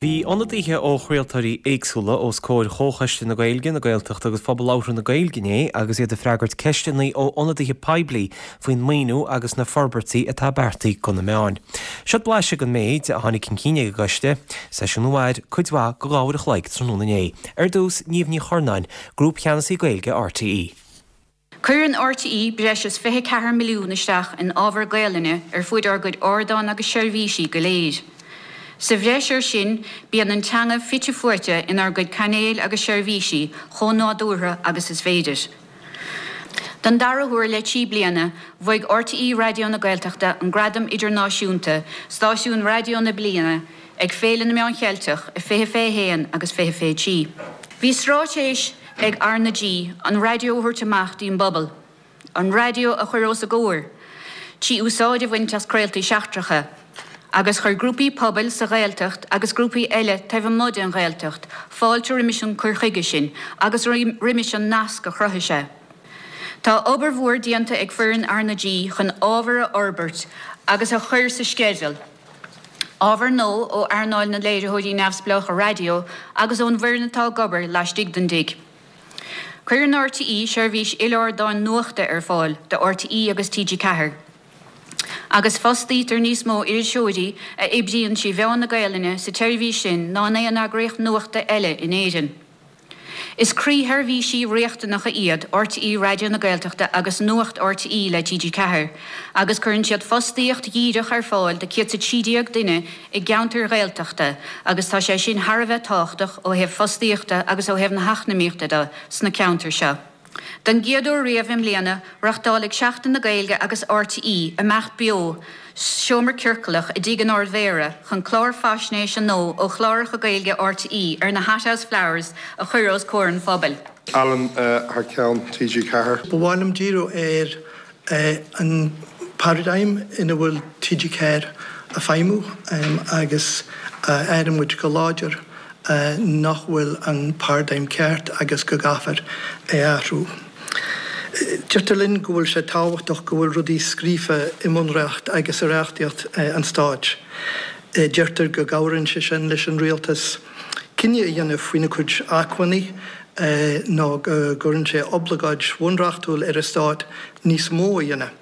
Bhí ionadaithe ó chraoltóirí éagsúla os comhair Chomhchoiste na Gaeilge, na Gaeltachta agus Phobal Labhartha na Gaeilge inné agus iad ag freagairt ceisteanna ó ionadaithe poiblí faoin maoiniú agus na forbairtí atá beartaithe do na meáin. Seod blaiseadh den méid a tháinig chun cinn ag an gcoiste, seisiún a mhair cuid mhaith de dhá uair a chloig tráthnóna inné. Ar dtús, Niamh Ní Churnáin, Grúpcheannasaí Gaeilge RTÉ. Cuireann RTÉ breis is 24 milliún isteach in ábhar Gaelainne ar fuaid ár gcuid ardán agus seirbhísí go léir. Sa bhreis air sin, bíonn an teanga fite fuaite inár gcuid cainéil agus seirbhísí chomh nádúrtha agus is féidir. Don dara huair le 3 bliana, bhuaigh RTÉ Raidió na Gaeltachta an gradam idirnáisiúnta Stáisiún Raidió na Bliana ag Féile na Meán Cheilteach i 2021 agus 2023. Bhí straitéis ag RnaG an raidió a thabhairt amach dtí'n bpobal, an raidió a chur os a gcomhair, trí úsáid a bhaint as craoltaí seachtracha, agus chuir grúpaí pobail sa Ghaeltacht agus grúpaí eile taobh amuigh den Ghaeltacht fáilte roimis an cur chuige sin agus roimis an nasc a chruthaigh sé. Tá obair mhór déanta ag foireann RnaG chun ábhar a fhorbairt agus a chur sa sceideal, Ábhar nua ó earnáil na léiritheoirí neamhspleácha raidió agus ón bhfoireann atá ag obair laistigh den dtigh. Cuireann RTÉ seirbhís il-ardáin nuachta ar fáil do RTÉ agus TG4, agus fostaítear níos mó iriseoirí a oibríonn trí mheán na Gaelainne sa tseirbhís sin ná in aon eagraíocht nuachta eile in Éirinn. Is croísheirbhísí riachtanacha iad RTÉ Raidió na Gaeltachta agus Nuacht RTÉ le TG4 agus cuireann siad fostaíocht dhíreach ar fáil do 113 duine i gceantair Ghaeltachta agus tá sé sin thar a bheith tábhachtach ó thaobh fostaíochta agus ó thaobh na heacnamaíochta de sna ceantair seo. Don gcéad uair riamh i mbliana, reáchtálfaidh Seachtain na Gaeilge agus RTÉ imeacht beo Seomra Ciorclach i dTigh an Ard-Mhéara chun clár faisnéise nua ó chláracha Gaeilge RTÉ ar na Hothouse Flowers a chur os comhair an phobail. Alan thar ceann TG4. Ba mhaith liom díriú ar an paradigm ina bhfuil TG4 ag feidhmiú agus airíonn muid go láidir nach bhfuil an paradigm ceart agus go gcaithfear é a athrú. Deirtear linn go bhfuil sé tábhachtach go bhfuil rudaí scríofa i mbunreacht agus i reachtaíocht an stáit. Deirtear go gcabhraíonn sé sin leis an rialtas cinneadh a dhéanamh faoina cuid acmhainní nó go gcuireann sé oibleagáid bhunreachtúil ar an stát níos mó a dhéanamh.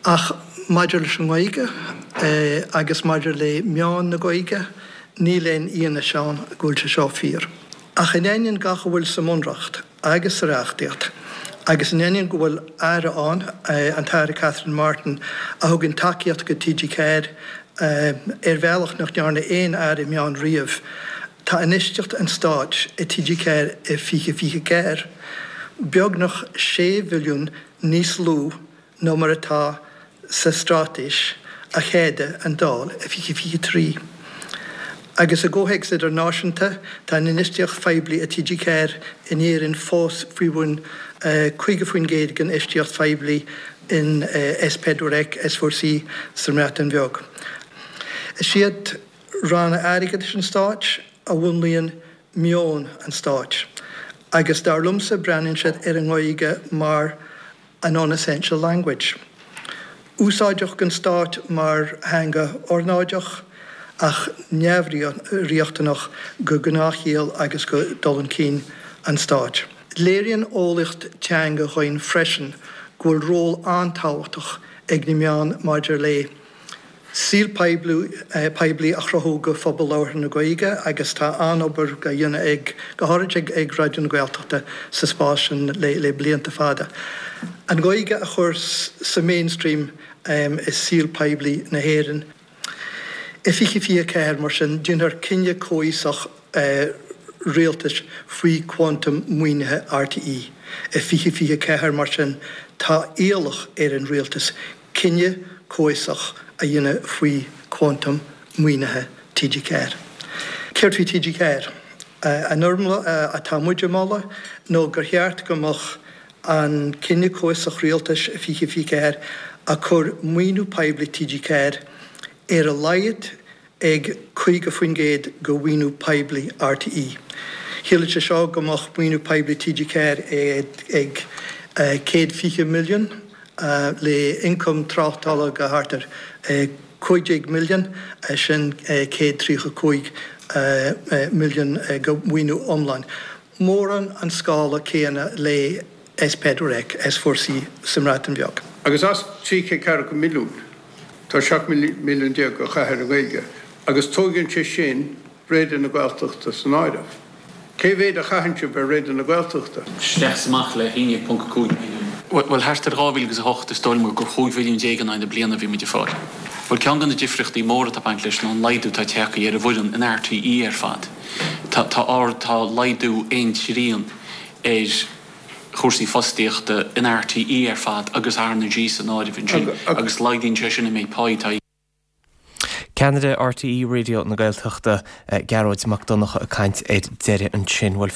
Ach maidir leis an nGaeilge agus maidir le meáin na Gaeilge, níl aon fhianaise ann go bhfuil sé seo fíor. Ach in ainneoin gach a bhfuil sa mBunreacht agus sa reachtaíocht, agus in ainneoin go bhfuil Aire ann, an tAire Catherine Martin, a thugann tacaíocht go TG4 ar bhealach nach ndearna aon Aire Meán riamh, tá infheistíocht an Stáit i TG4 i 2024 beagnach 6 mhilliún níos lú ná mar atá sa straitéis a cheadaigh an Dáil i 2023. Agus i gcomhthéacs idirnáisiúnta, tá an infheistíocht phoiblí i TG4 in Éirinn fós faoi bhun 50% den infheistíocht phoiblí in S4C, S4C sa mBreatain Bheag. Is iad ranna airgeadais an stáit a mhúnlaíonn meon an stáit agus dar liomsa breathnaíonn siad ar an nGaeilge mar a non-essential language. Úsáideach don stát mar theanga ornáideach ach neamhriachtanach go gnáthshaol agus go dul chun cinn an stáit. Léiríonn eolaíocht teanga dhúinn freisin go bhfuil ról an-tábhachtach ag na meáin maidir le saol poiblí a chruthú go phobal labhartha na Gaeilge agus tá an-obair á dhéanamh ag, go háirid ag Raidió na Gaeltachta sa spás sin le blianta fada. An Ghaeilge a chur sa mainstream i saol poiblí na hÉireann. I 2024, mar sin, déanfar cinneadh comhfhiosach rialtais faoi quantum maoinithe RTÉ. I 2024, mar sin, tá iallach ar an rialtas cinneadh comhfhiosach a dhéanamh faoi quantum maoinithe TG4. Céard faoi TG4? An fhoirmle atá muid a mholadh nó gur cheart go mbeadh an cinneadh comhfhiosach rialtais i 2024 ag cur maoiniú poiblí TG4 ar a laghad ag 50% de mhaoiniú poiblí RTÉ. Chiallaigh sé seo go mbeadh maoiniú poiblí TG4 ag 120 milliún le ioncam tráchtála de thart ar. 15 milliún, sin 135 milliún de mhaoiniú iomlán. Mórán an scála céanna le S4C, S4C sa mBreatain Bheag. Agus as 340 milliún, tá 17 milliún á chaitheamh ar an nGaeilge agus tóigeann sé sin Raidió na Gaeltachta san áireamh. Cé mhéad a chaitheann sibh ar Raidió na Gaeltachta? Isteach is amach le 11.5 milliún. Bhuel, thart ar 2008 is dóigh liom gur 15 mhilliún in aghaidh na bliana a bhí muid ag fáil. Bhuel, ceann de na difríochtaí móra atá ag baint leis ná an laghdú atá tagtha ar an bhfoireann in RTÉ ar fad. Tá, tá ard, tá laghdú aon trian ar chúrsaí fostaíochta in RTÉ ar fad agus RnaG san áireamh ansin agus laghdaíonn sé sin an méid páí atá Ceannaire RTÉ Raidió na Gaeltachta, Gearóid Mac Donncha ag caint ar deireadh ansin. Bhuel.